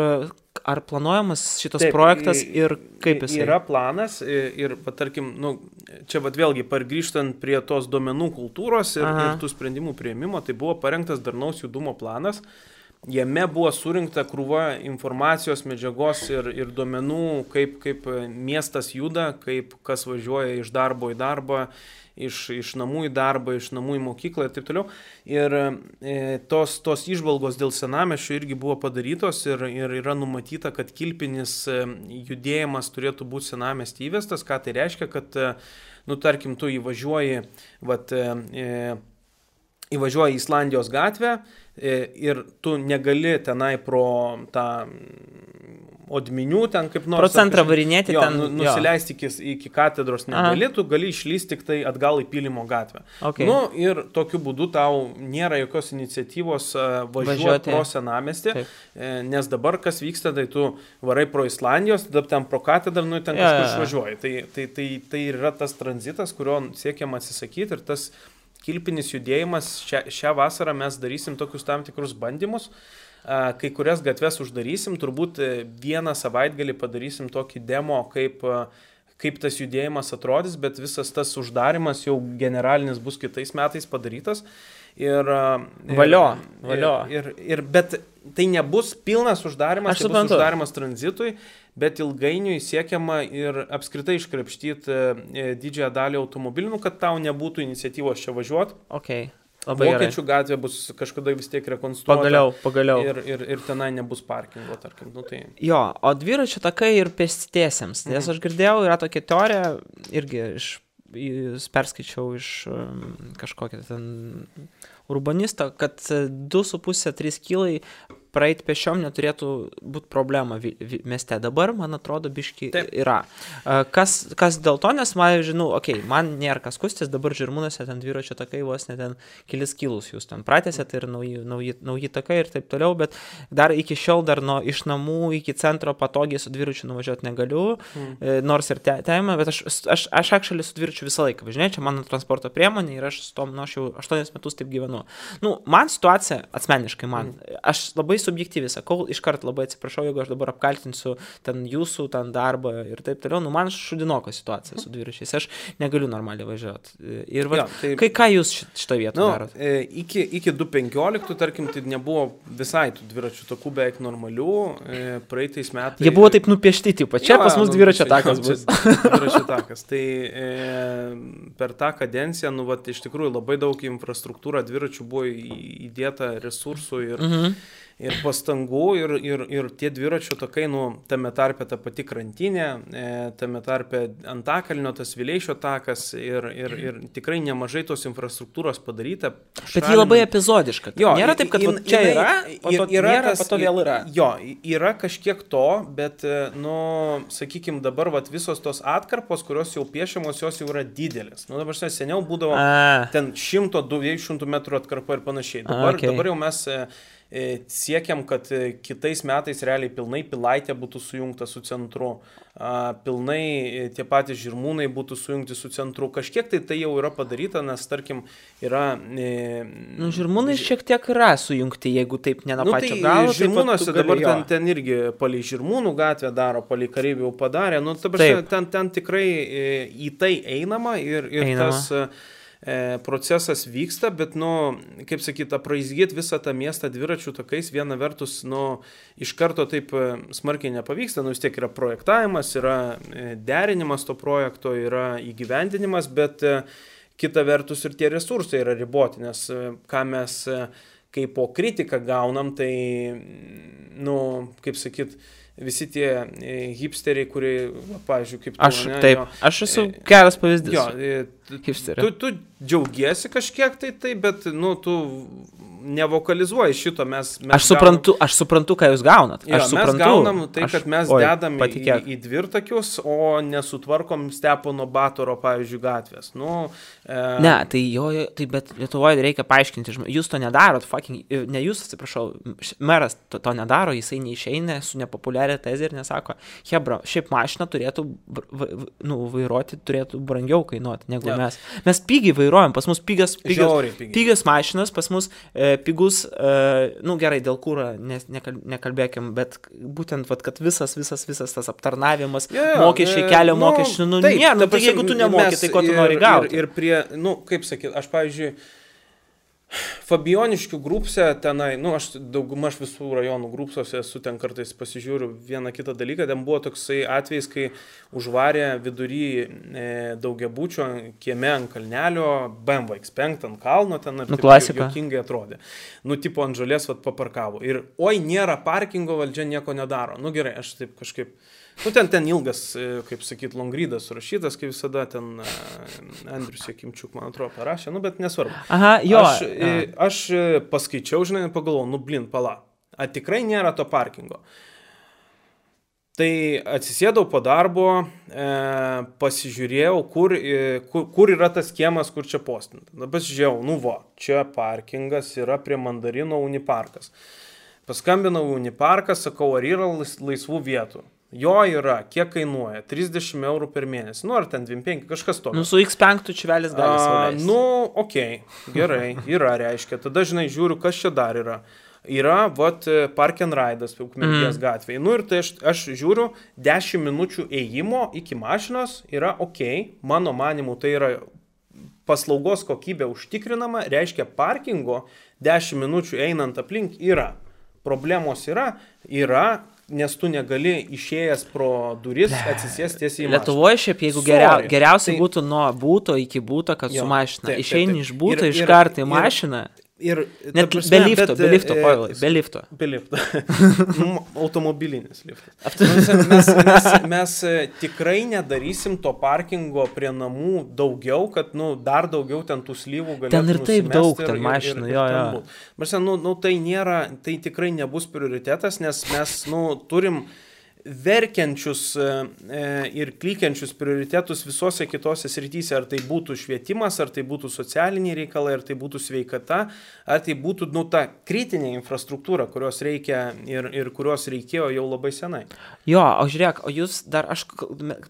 Speaker 1: ar planuojamas šitas projektas ir kaip jis?
Speaker 2: Yra planas ir tarkim, čia vėlgi pargrįžtant prie tos duomenų kultūros ir tų sprendimų priėmimo, tai buvo parengtas darnaus judumo planas. Jame buvo surinkta krūva informacijos, medžiagos ir duomenų, kaip miestas juda, kaip kas važiuoja iš darbo į darbą, iš namų į darbą, iš namų į mokyklą ir taip toliau. Ir tos įžvalgos dėl senamiesčio irgi buvo padarytos ir yra numatyta, kad kilpinis judėjimas turėtų būti senamiestį įvestas. Ką tai reiškia, kad, tarkim, tu įvažiuoji į Islandijos gatvę, ir tu negali tenai pro tą Odminių ten kaip nors...
Speaker 1: Pro centrą varinėti ten...
Speaker 2: Nusileisti iki katedros negali, tu gali išlysti tik tai atgal į Pylimo gatvę.
Speaker 1: Okay.
Speaker 2: Ir tokiu būdu tau nėra jokios iniciatyvos važiuoti pro senamiestį, nes dabar kas vyksta, tai tu varai pro Islandijos, tada ten pro katedrą, ten kažkur išvažiuoji. Tai yra tas tranzitas, kurio siekiam atsisakyti, ir tas kilpinis judėjimas, šią vasarą mes darysim tokius tam tikrus bandymus, kai kurias gatves uždarysim, turbūt vieną savaitgalį padarysim tokį demo, kaip tas judėjimas atrodys, bet visas tas uždarimas jau generalinis bus kitais metais padarytas.
Speaker 1: Valio.
Speaker 2: Bet tai nebus pilnas uždarimas, tai bus uždarimas tranzitui, bet ilgainiui siekiama ir apskritai iškrapštyti didžiąją dalį automobilių, kad tau nebūtų iniciatyvos čia važiuoti.
Speaker 1: Okay.
Speaker 2: Vokiečių gatvė bus kažkada vis tiek rekonstruota.
Speaker 1: Pagaliau.
Speaker 2: Ir tenai nebus parkingo, tarkim.
Speaker 1: Jo, o dviračių takai ir pėstiesiems. Nes aš girdėjau, yra tokia teorija, irgi perskaičiau iš kažkokio ten urbanisto, kad 2,5-3 kilai praeiti pešiom neturėtų būti problema mieste. Dabar, man atrodo, biški yra. Kas dėl to, nes man nėra kas kustis, dabar Žirmūnuose ten dviračio takai vos ne ten kelis kilus jūs ten pratęsėt ir nauji takai ir taip toliau, bet dar iki šiol iš namų iki centro patogiai su dviračiu nuvažiuoti negaliu, nors ir teima, bet aš actually su dviračiu visą laiką važinėju, čia mano transporto priemonė ir aš su tom, aš jau 8 metus taip gyvenu. Man situacija, asmeniškai aš labai subjektyviai sakau, iškart labai atsiprašau, jeigu aš dabar apkaltinsiu ten jūsų ten darbą ir taip toliau, man šudinoka situacija su dviračiais, aš negaliu normaliai važiuoti. Ir ką jūs šitą vietą darot?
Speaker 2: Iki 2015, tarkim, tai nebuvo visai tų dviračių takų beveik normalių, praeitais metais...
Speaker 1: Jie buvo taip nupiešti, čia pas mus dviračio takas bus.
Speaker 2: Dviračio takas. Tai per tą kadenciją, iš tikrųjų labai daug infrastruktūrą dviračių buvo įdėta resursų ir pastangų, ir tie dviračių takai, tame tarpe ta pati krantinė, tame tarpe Antakalnio, tas Vileišio takas ir tikrai nemažai tos infrastruktūros padaryta.
Speaker 1: Bet ji labai epizodiška. Nėra taip, kad čia yra, po to vėl yra.
Speaker 2: Jo, yra kažkiek to, bet, sakykime, dabar visos tos atkarpos, kurios jau piešiamos, jos jau yra didelės. Dabar seniau būdavo ten 100-200 metrų atkarpa ir panašiai. Dabar jau mes siekiam, kad kitais metais realiai pilnai Pilaitė būtų sujungta su centru, pilnai tie patys Žirmūnai būtų sujungti su centru. Kažkiek tai jau yra padaryta, nes tarkim yra...
Speaker 1: Žirmūnai šiek tiek yra sujungti, jeigu taip ne nuo pačio galo.
Speaker 2: Žirmūnuose dabar ten irgi palei Žirmūnų gatvę daro, palei Kareivių jau padarė. Ten tikrai į tai einama ir tas... procesas vyksta, bet, kaip sakyt, apraizgyti visą tą miestą dviračių takais, viena vertus, iš karto taip smarkiai nepavyksta, vis tiek yra projektavimas, yra derinimas to projekto, yra įgyvendinimas, bet kita vertus ir tie resursai yra riboti, nes ką mes kaip po kritiką gaunam, tai, kaip sakyt, visi tie hipsteriai, kurie, pavyzdžiui, kaip tu...
Speaker 1: Aš esu geras pavyzdys.
Speaker 2: Jo, tu džiaugiesi kažkiek tai, bet, tu nevokalizuoju šito, mes
Speaker 1: aš suprantu, ką jūs gaunat.
Speaker 2: Jo,
Speaker 1: suprantu.
Speaker 2: Mes gaunam tai, kad mes dedam
Speaker 1: patikėk.
Speaker 2: į dvirtakius, o nesutvarkom Stepono Batoro, pavyzdžiui, gatvės.
Speaker 1: Ne, tai bet Lietuvoje reikia paaiškinti, jūs to nedarot, ne jūs, atsiprašau, meras to nedaro, jisai neišeina su nepopuliaria tezė ir nesako, hebra, šiaip mašiną turėtų vairuoti, turėtų brangiau kainuoti negu mes. Mes pigiai vairuojam, pas mus pigios mašinas, pas mus pigus, gerai, dėl kūro nekalbėkim, bet būtent, kad visas tas aptarnavimas, mokesčiai, kelio mokesčiai, nėra, tai jeigu tu nemoki, tai ko tu nori gauti.
Speaker 2: Ir prie, kaip sakyt, aš, pavyzdžiui, Fabioniškių grupse tenai, aš daugumaž visų rajonų grupsuose esu, ten kartais pasižiūriu vieną kitą dalyką, ten buvo toksai atvejis, kai užvarė vidury daugiabučio kieme ant kalnelio, BMW X5 ant kalno, ten ir juokingai atrodė. Tipo ant žolės paparkavo. Ir nėra parkingo, valdžia nieko nedaro. Gerai, aš taip kažkaip... ten ilgas, kaip sakyt, longrydas surašytas, kaip visada ten Andrius Jakimčiuk, man atrodo, parašė, bet nesvarbu.
Speaker 1: Aha, jo.
Speaker 2: Aš paskaičiau, žinai, pagalvojau, pala, tikrai nėra to parkingo. Tai atsisėdau po darbo, pasižiūrėjau, kur yra tas kiemas, kur čia postinta. Pasižiūrėjau, čia parkingas yra prie Mandarino Uniparkas. Paskambinau Uniparką, sakau, ar yra laisvų vietų. Jo yra, kiek kainuoja? 30 eurų per mėnesį. Ar ten 25, kažkas tokio.
Speaker 1: Su X5 čiuvelis gali sauliais.
Speaker 2: Okei, gerai, yra, reiškia. Tada, žinai, žiūriu, kas čia dar yra. Yra, Park and Ride'as, Ukmergės gatvėje. Ir tai aš žiūriu, 10 minučių ėjimo iki mašinos yra okei. Mano manimu, tai yra paslaugos kokybė užtikrinama, reiškia parkingo 10 minučių einant aplink yra. Problemos yra, nes tu negali išėjęs pro duris atsisėsti tiesiai į mašiną.
Speaker 1: Lietuvoje šiaip, jeigu geriausiai būtų nuo būto iki būto, kad su mašina. Išeini iš būto, iš karto į mašiną. Net be lifto, Pavilai, be lifto.
Speaker 2: Be lifto. Automobilinis liftas. Mes tikrai nedarysim to parkingo prie namų daugiau, kad dar daugiau ten tų slyvų galėtų
Speaker 1: ten ir taip daug ten mašinų, jo.
Speaker 2: Tai tikrai nebus prioritetas, nes mes turim verkiančius ir klykiančius prioritetus visose kitose srityse, ar tai būtų švietimas, ar tai būtų socialiniai reikalai, ar tai būtų sveikata, ar tai būtų ta kritinė infrastruktūra, kurios reikia ir kurios reikėjo jau labai senai.
Speaker 1: Jo, o žiūrėk, o jūs dar, aš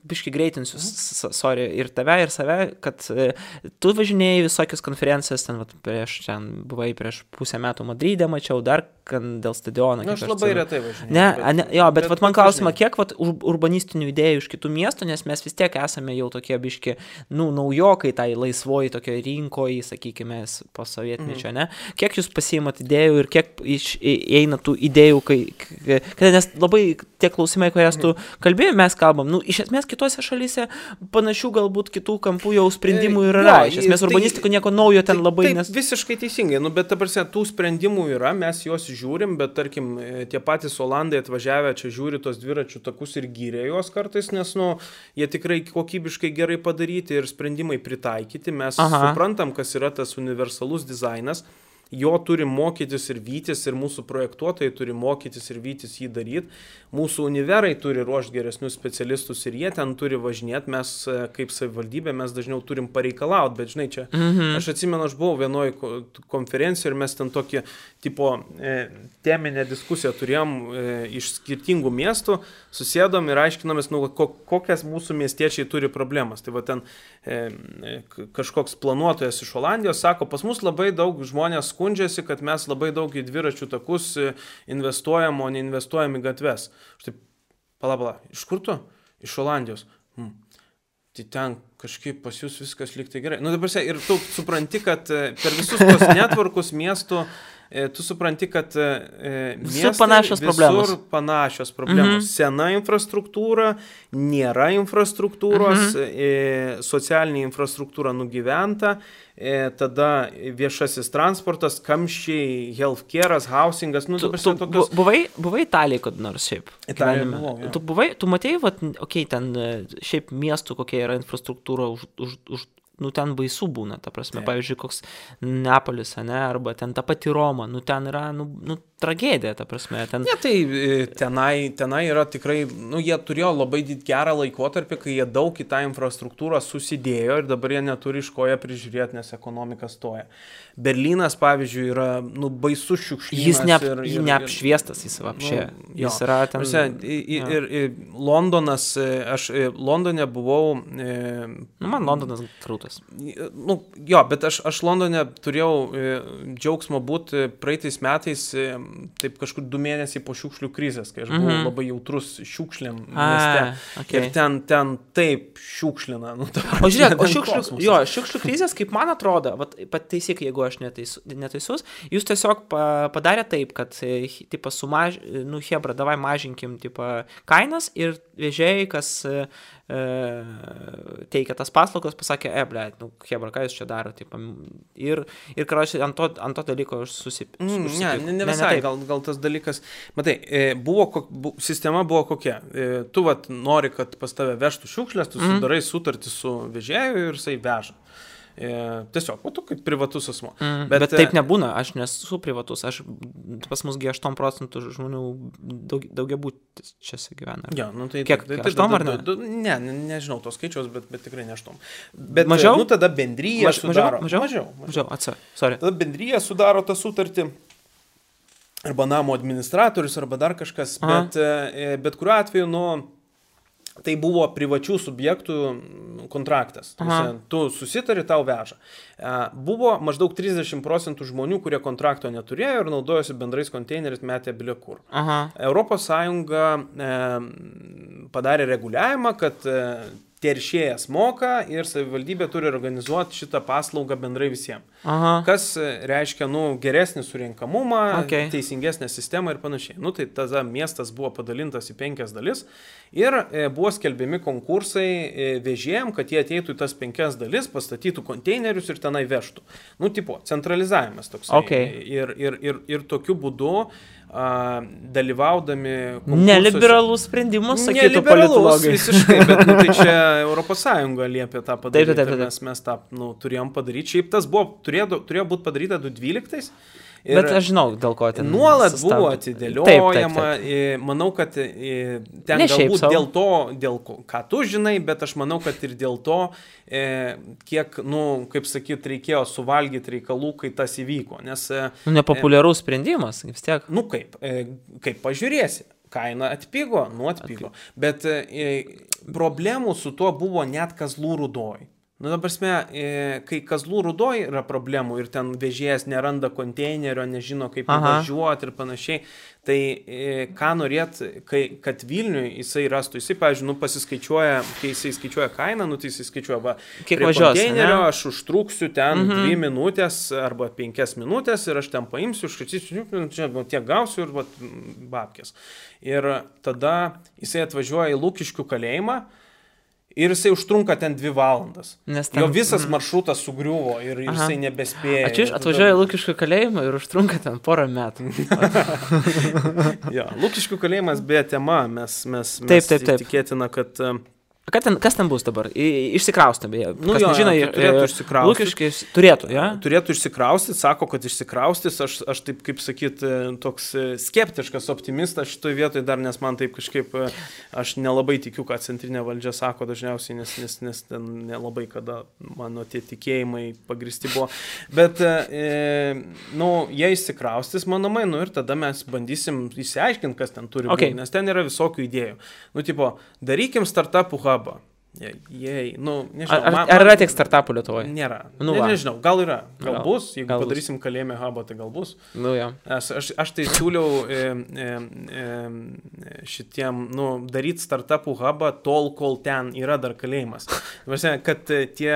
Speaker 1: biškai greitinsiu, ir tave, ir save, kad tu važinėjai visokias konferencijas, ten buvai prieš pusę metų Madride, mačiau dar dėl stadiono.
Speaker 2: Aš labai retai važinėjau.
Speaker 1: Jo, bet man klausimą, kiek urbanistinių idėjų iš kitų miestų, nes mes vis tiek esame jau tokie biški, naujokai tai laisvoji tokio rinkoje, sakykime, po sovietmečio, ne? Kiek jūs pasiimat idėjų ir kiek eina tų idėjų, nes labai tie klausimai, kurias tu kalbėjai, mes kalbam, iš esmės kitose šalyse panašių galbūt kitų kampų jau sprendimų yra. Iš esmės urbanistika nieko naujo ten labai
Speaker 2: visiškai teisingai, bet ta prasme, tų sprendimų yra, mes juos žiūrim, bet tarkim, tie patys Olandai atvažiavę čia žiūri tos dviračių takus ir gyrė juos kartais, nes jie tikrai kokybiškai gerai padaryti ir sprendimai pritaikyti. Mes suprantam, kas yra tas universalus dizainas. Jo turi mokytis ir vytis, ir mūsų projektuotojai turi mokytis ir vytis jį daryti. Mūsų univerai turi ruošti geresnius specialistus ir jie ten turi važinėti. Mes kaip savivaldybė, mes dažniau turim pareikalauti, bet žinai, čia aš atsimenu, aš buvau vienoje konferencijoje ir mes ten tokį tipo teminę diskusiją turėjom iš skirtingų miestų, susėdom ir aiškinomės, kokias mūsų miestiečiai turi problemas. Tai va ten kažkoks planuotojas iš Olandijos sako, pas mus labai daug žmonės skundžiasi, kad mes labai daug į dviračių takus investuojam, o neinvestuojam į gatves. Štai, pala, iš kur tu? Iš Olandijos. Tai ten kažkaip pas jūs viskas lyg tai gerai. Dabar ir tu supranti, kad per visus tos netvarkus miestų tu supranti, kad miestai visur panašios problemos. Sena infrastruktūra, nėra infrastruktūros, socialinė infrastruktūra nugyventa, tada viešasis transportas, kamščiai, healthcare'as, housingas.
Speaker 1: Buvai Italijai, kad nors šiaip?
Speaker 2: Italijai buvau,
Speaker 1: Tu matėjai, ten šiaip miestų, kokia yra infrastruktūra nu, ten baisu būna, ta prasme, pavyzdžiui, koks Neapolis, ne, arba ten ta pati Roma, nu, ten yra, nu, tragedija, ta prasme. Ten...
Speaker 2: Ne, tai tenai yra tikrai, nu, jie turėjo labai gerą laikotarpį, kai jie daug į tą infrastruktūrą susidėjo ir dabar jie neturi iš ko ją prižiūrėti, nes ekonomika stoja. Berlynas, pavyzdžiui, yra, nu, baisus šiukšlynas.
Speaker 1: Jis neapšviestas jis apšė.
Speaker 2: Nu,
Speaker 1: jis yra ten...
Speaker 2: Ir Londonas, aš Londone buvau...
Speaker 1: man Londonas krūtas.
Speaker 2: Nu, jo, bet aš Londone turėjau džiaugsmo būti praeitais metais, taip kažkur 2 mėnesiai po šiukšlių krizės, kai aš buvau labai jautrus šiukšlėm mieste. Okay. Ir ten taip šiukšlina. Nu,
Speaker 1: o žiūrėk, šiukšlių krizės, kaip man atrodo, pataisyk, jeigu aš neteisus, jūs tiesiog padarė taip, kad tipa, hebra, davai mažinkim tipa, kainas ir vežėjai, kas teikia tas paslaugas, pasakė, blėt, nu, hebra, ką jūs čia daro, tipa, ir karočiui, ant to dalyko aš
Speaker 2: Ne visai, gal tas dalykas, matai, sistema buvo kokia, tu vat nori, kad pas tave vežtų šiukšlės, tu sudarai sutartį su vežėju ir jisai veža. Tiesiog, tu kaip privatus asmo.
Speaker 1: Bet taip nebūna, aš nesu privatus, pas musgi 8% žmonių daugiabutis čia gyvena.
Speaker 2: Ja, nu, tai,
Speaker 1: kiek, 8 ar ne?
Speaker 2: Nežinau tos skaičiaus, bet tikrai ne 8. Bet
Speaker 1: mažiau?
Speaker 2: Nu, tada bendryja sudaro.
Speaker 1: Mažiau, sorry.
Speaker 2: Tada bendryja sudaro tą sutartį, arba namo administratorius, arba dar kažkas, bet kuriuo atveju, nu, tai buvo privačių subjektų kontraktas. Tu susitari, tau veža. Buvo maždaug 30% žmonių, kurie kontrakto neturėjo ir naudojosi bendrais konteineriais, metė bilekur. Europos Sąjunga padarė reguliavimą, kad teršėjas moka ir savivaldybė turi organizuoti šitą paslaugą bendrai visiems. Kas reiškia, nu, geresnį surinkamumą, teisingesnę sistemą ir panašiai. Nu, tai tada miestas buvo padalintas į 5 dalis ir buvo skelbiami konkursai vežėjim, kad jie ateitų į tas 5 dalis, pastatytų konteinerius ir tenai vežtų. Nu, tipo, centralizavimas toks. Ir tokiu būdu dalyvaudami konkursuose.
Speaker 1: Neliberalus sprendimus, sakytų politologai.
Speaker 2: Visiškai, bet nu, tai čia Europos Sąjunga liepė tą padaryti. Taip. Mes tą turėjom padaryti. Šiaip tas turėjo būti padaryta 2012.
Speaker 1: Bet aš žinau, dėl ko ten
Speaker 2: nuolat buvo atidėliojama. Taip. Manau, kad ten ne galbūt dėl ko, ką tu žinai, bet aš manau, kad ir dėl to, kiek, nu, kaip sakyt, reikėjo suvalgyti reikalų, kai tas įvyko. Nes,
Speaker 1: nepopuliarus sprendimas, vis tiek.
Speaker 2: Nu kaip pažiūrėsi. Kaina atpigo, atpigo. Bet problemų su tuo buvo net Kazlų Rūdoj. Nu, dabar, kai Kazlų Rūdoj yra problemų ir ten vežėjas neranda konteinerio, nežino kaip važiuoti ir panašiai, tai ką norėt, kad Vilniui jisai rastų, jisai, pavyzdžiui, pasiskaičiuoja, kai jisai skaičiuoja kainą, tai jisai skaičiuoja,
Speaker 1: kiek važiuos,
Speaker 2: konteinerio aš užtruksiu ten 2 minutės arba 5 minutės ir aš ten paimsiu, užkačysiu, čia tiek gausiu ir babkės. Ir tada jisai atvažiuoja į Lukiškių kalėjimą, ir jisai užtrunka ten 2 valandas. Jo visas maršrutas sugriuvo ir jisai nebespėja.
Speaker 1: Atvažiuoja Lukiškių kalėjimą ir užtrunka ten 1 metų.
Speaker 2: Jo, Lukiškių kalėjimas beje tema, mes tikėtina, kad...
Speaker 1: Kas ten bus dabar? Išsikraustė, beje.
Speaker 2: Nu, turėtų išsikraustyti.
Speaker 1: Lukiškis turėtų, ja?
Speaker 2: Turėtų išsikraustyti, sako, kad išsikraustys. Aš taip, kaip sakyt, toks skeptiškas optimistas šitoje vietoje dar, nes man taip kažkaip, aš nelabai tikiu, ką centrinė valdžia sako dažniausiai, nes ten nelabai kada mano tie tikėjimai pagristi buvo. Bet, jie išsikraustys, manomai, ir tada mes bandysim įsiaiškinti, kas ten turi būti, nes ten yra visokių idėjų. Tipo, darykim startupų hubą.
Speaker 1: Nežinau. Ar yra tiek startupų Lietuvoje?
Speaker 2: Nėra. Nežinau, gal yra. Gal bus. Jeigu padarysim kalėjime hubą, tai gal bus. Aš tai siūliau šitiem, daryti startupų hubą tol, kol ten yra dar kalėjimas. Kad tie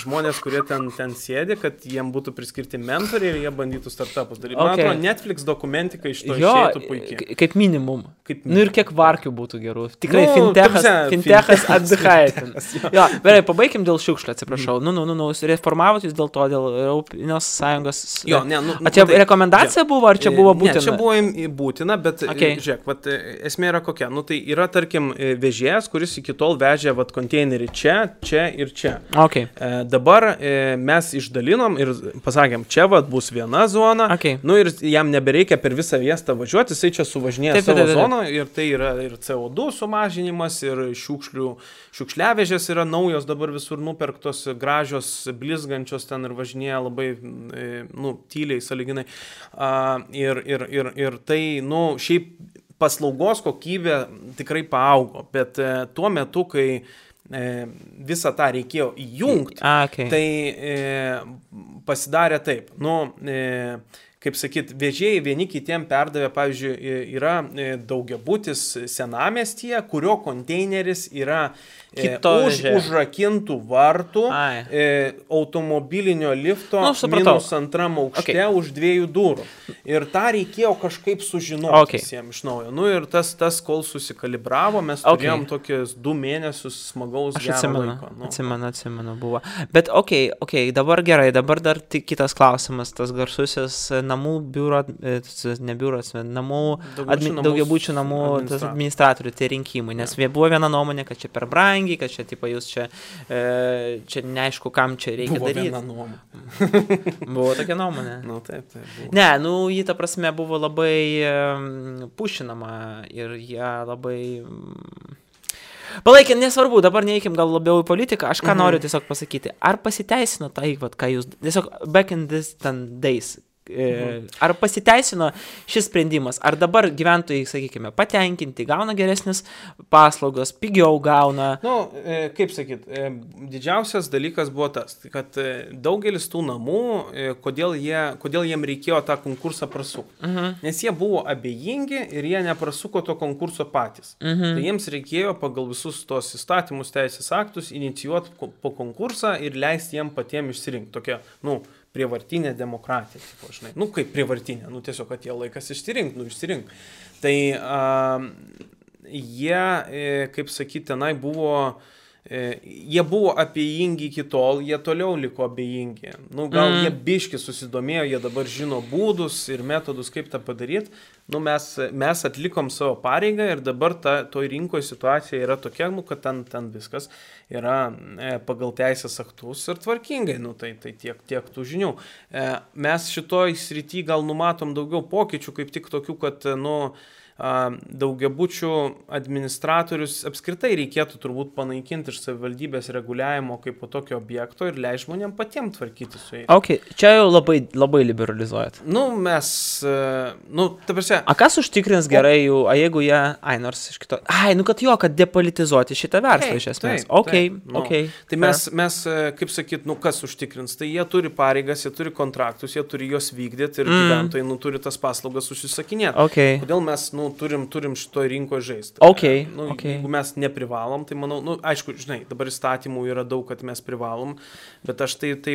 Speaker 2: žmonės, kurie ten sėdi, kad jiem būtų priskirti mentoriai ir jie bandytų startupus daryti. Man atrodo, Netflix dokumentika iš to išeitų puikiai.
Speaker 1: Kaip minimum. Ir kiek varkių būtų gerų. Tikrai fintechas Atbychaitė. Jo, gerai, pabaikim dėl šiukšlių, atsiprašau. Reformavot jūs dėl to, dėl Europinės Sąjungos.
Speaker 2: Jo, ne,
Speaker 1: čia rekomendacija buvo, ar čia buvo būtina?
Speaker 2: Ne, čia buvo būtina, bet žiūrėk, esmė yra kokia. Tai yra, tarkim, vežėjas, kuris iki tol vežė konteinerį čia ir čia.
Speaker 1: Okay.
Speaker 2: Dabar mes išdalinom ir pasakėm, čia bus viena zona, ir jam nebereikia per visą miestą važiuoti, jisai čia suvažinėja savo zoną ir tai yra ir CO2 sumažinimas, ir šiukšliavežės yra naujos, dabar visur nupirktos, gražios, blizgančios ten ir važinėja labai, tyliai, sąlyginai. Ir tai, šiaip paslaugos kokybė tikrai paaugo, bet tuo metu, kai visą tą reikėjo įjungti, tai pasidarė taip, kaip sakyt, vežėjai vieni kitiem perdavė, pavyzdžiui, yra daugiabutis senamiestyje, kurio konteineris yra užrakintų vartų, automobilinio lifto minus antram aukšte už 2 durų. Ir tą reikėjo kažkaip sužinoti visiems iš naujo. Ir tas kol susikalibravo, mes turėjom tokius 2 mėnesius smagaus gero laiko.
Speaker 1: Atsimenu, buvo. Bet dabar gerai, dabar dar tik kitas klausimas, tas garsusis namų biuro, namų daugiabučių namų administratorių, tie rinkimai, nes buvo viena nuomonė, kad čia per brangiai, kad čia, jūs čia neaišku, kam čia reikia daryti.
Speaker 2: Buvo viena nuomonė.
Speaker 1: Buvo tokia nuomonė.
Speaker 2: Taip, buvo.
Speaker 1: Ne, jį ta prasme buvo labai pušinama ir jie labai... Palaikė, nesvarbu, dabar neįkim gal labiau į politiką, aš ką noriu tiesiog pasakyti. Ar pasiteisino tai, ką jūs... Tiesiog back in this days... Ar pasiteisino šis sprendimas? Ar dabar gyventojai, sakykime, patenkinti, gauna geresnis paslaugos, pigiau gauna?
Speaker 2: Kaip sakyt, didžiausias dalykas buvo tas, kad daugelis tų namų, kodėl jiem reikėjo tą konkursą prasukti. Nes jie buvo abejingi ir jie neprasuko to konkurso patys. Tai jiems reikėjo pagal visus tos įstatymus, teisės aktus inicijuoti po konkursą ir leisti jiem patiem išsirinkti. Tokia, prievartinė demokratija, žinai. Kaip prievartinė, tiesiog atėjo laikas išsirink. Tai jie, kaip sakyti, tenai buvo, jie buvo abejingi iki tol, jie toliau liko abejingi. Gal jie biški susidomėjo, jie dabar žino būdus ir metodus, kaip tą padaryti. Mes atlikom savo pareigą ir dabar toj rinkoje situacija yra tokia, kad ten viskas yra pagal teisės aktus ir tvarkingai, tai tiek tų žinių. Mes šitoj srity gal numatom daugiau pokyčių, kaip tik tokių, kad, daugiabučių administratorius apskritai reikėtų turbūt panaikinti iš savivaldybės reguliavimo kaip po tokio objekto ir leis žmonėm patiems tvarkyti su jais.
Speaker 1: Čia jau labai liberalizuojat.
Speaker 2: Mes, ta prasme...
Speaker 1: Kas užtikrins gerai jų, jeigu jie, nors iš kito... kad depolitizuoti šitą verslą iš esmės.
Speaker 2: Tai mes, kaip sakyt, kas užtikrins? Tai jie turi pareigas, jie turi kontraktus, jie turi juos vykdyti ir gyventojai turi tas paslaugas užsisakinėti. Kodėl mes, turim šitoj rinkoje žaisti. Jeigu mes neprivalom, tai manau, aišku, žinai, dabar įstatymų yra daug, kad mes privalom, bet aš taip,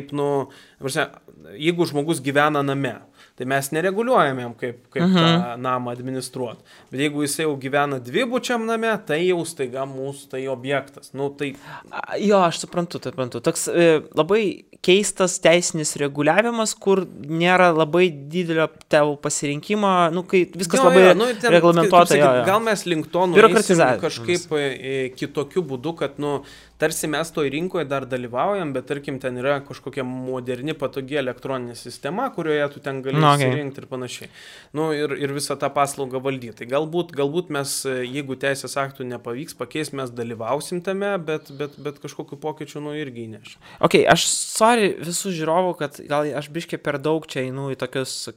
Speaker 2: jeigu žmogus gyvena name, tai mes nereguliuojam jam, kaip tą namą administruoti. Bet jeigu jis jau gyvena dvibučiam name, tai jau staiga mūsų tai objektas.
Speaker 1: Jo, aš suprantu. Toks labai keistas teisinis reguliavimas, kur nėra labai didelio tavo pasirinkimo, kai viskas labai reglamentuota.
Speaker 2: Gal mes link to nueisim kažkaip kitokiu būdu, kad, tarsi mes toj rinkoje dar dalyvaujam, bet tarkim ten yra kažkokia moderni, patogi elektroninė sistema, kurioje tu ten gali įsirinkti ir panašiai. Ir visą tą paslaugą valdyti. Tai galbūt mes, jeigu teisės aktų nepavyks pakeis, mes dalyvausim tame, bet kažkokiu pokyčiu irgi įnešim.
Speaker 1: Aš sorry visų žiūrovų, kad gal aš biškai per daug čia einu į tokius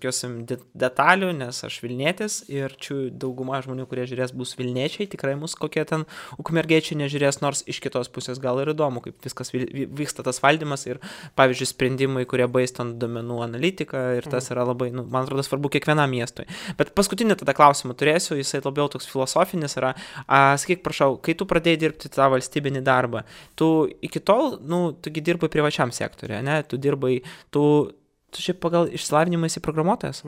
Speaker 1: detalių, nes aš Vilnietis ir čia dauguma žmonių, kurie žiūrės, bus Vilniečiai, tikrai mus kokie ten ukmergiečiai nežiūrės, nors iš kitos pusės gal ir įdomu, kaip viskas vyksta tas valdymas ir, pavyzdžiui, sprendimai, kurie based ant duomenų analitiką ir tas yra labai, man atrodo, svarbu kiekvienam miestui. Bet paskutinį tada klausimą turėsiu, jisai labiau toks filosofinis yra. Sakyk, prašau, kai tu pradėjai dirbti tą valstybinį darbą, tu iki tol, tugi dirbai privačiam sektoriuje, ne? Tu šiaip pagal išsilavinimą esi programuotojas.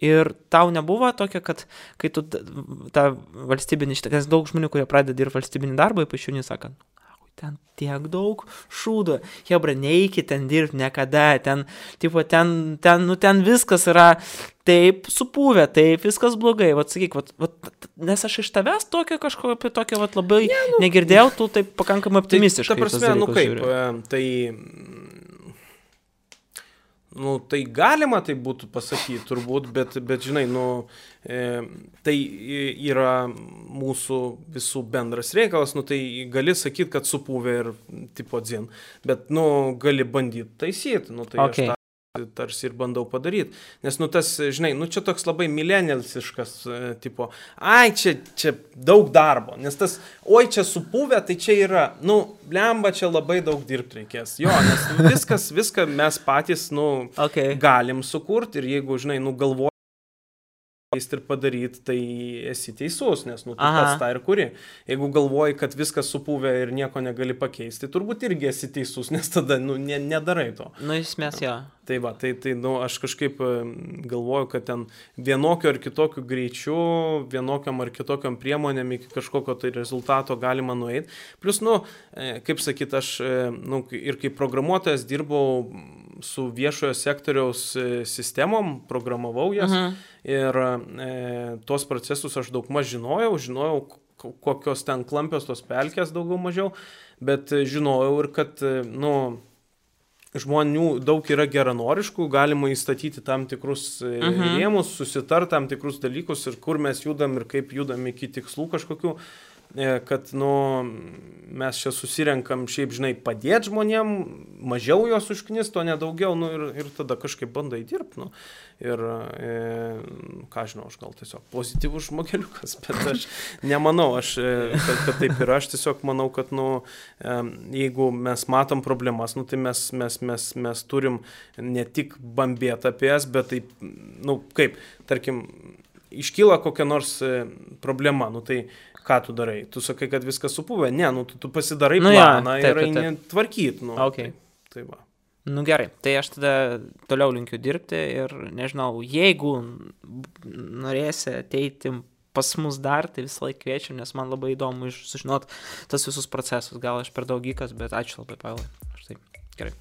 Speaker 1: Ir tau nebuvo tokia, kad kai tu tą valstybinį, nes daug žmonių, kurie pradeda dirbti valstybinį darbą, ypač jauni sakant, ten tiek daug šūdo, hebra, neikit ten dirbti niekada, ten viskas yra taip supuvę, taip viskas blogai, sakyk, nes aš iš tavęs tokio kažko apie tokio labai negirdėjau, tu taip pakankamai optimistiškai.
Speaker 2: Ta prasme, kaip, tai galima tai būtų pasakyti turbūt, bet žinai, tai yra mūsų visų bendras reikalas, tai gali sakyti, kad supuvę ir tipo dzin, bet, gali bandyti taisyti, tai okay. Aš tarsi ir bandau padaryti, nes, tas, žinai, čia toks labai milenialsiškas, tipo, čia daug darbo, nes tas, čia supuvę, tai čia yra, blemba, čia labai daug dirbti reikės, nes viską mes patys, okay. Galim sukurti ir jeigu, žinai, galvoji ir padaryti, tai esi teisus, nes, tu pats tą ir kuri. Jeigu galvoji, kad viskas supuvę ir nieko negali pakeisti, turbūt irgi esi teisus, nes tada, nedarai to.
Speaker 1: Esmės, jo.
Speaker 2: Tai aš kažkaip galvoju, kad ten vienokio ar kitokio greičiu, vienokiam ar kitokiam priemonėm iki kažkokio tai rezultato galima nueiti. Plus, kaip sakyt, aš ir kaip programuotojas dirbau su viešojo sektoriaus sistemom, programavau jas ir tos procesus aš daug maž žinojau, kokios ten klampios tos pelkės daugiau mažiau, bet žinojau ir kad, žmonių daug yra geranoriškų, galima įstatyti tam tikrus rėmus, susitart tam tikrus dalykus ir kur mes judam ir kaip judam iki tikslų kažkokių, kad, mes čia susirenkam šiaip, žinai, padėti žmonėm, mažiau jos užknist, o nedaugiau, ir tada kažkaip bandai dirbti, ir, ką žinau, aš gal tiesiog pozityvus žmogeliukas, bet aš nemanau, kad taip yra, aš tiesiog manau, kad, jeigu mes matom problemas, tai mes turim ne tik bambėti apie jas, bet taip, kaip, tarkim, iškyla kokia nors problema, tai ką tu darai? Tu sakai, kad viskas supuvę? Ne, tu pasidarai planą ir eini tvarkyti.
Speaker 1: Okay.
Speaker 2: Tai va.
Speaker 1: Gerai, tai aš tada toliau linkiu dirbti ir nežinau, jeigu norėsi ateiti pas mus dar, tai visą laiką kviečiu, nes man labai įdomu sužinot tas visus procesus. Gal aš per daug gykas, bet ačiū labai, Pavilai. Štai, gerai.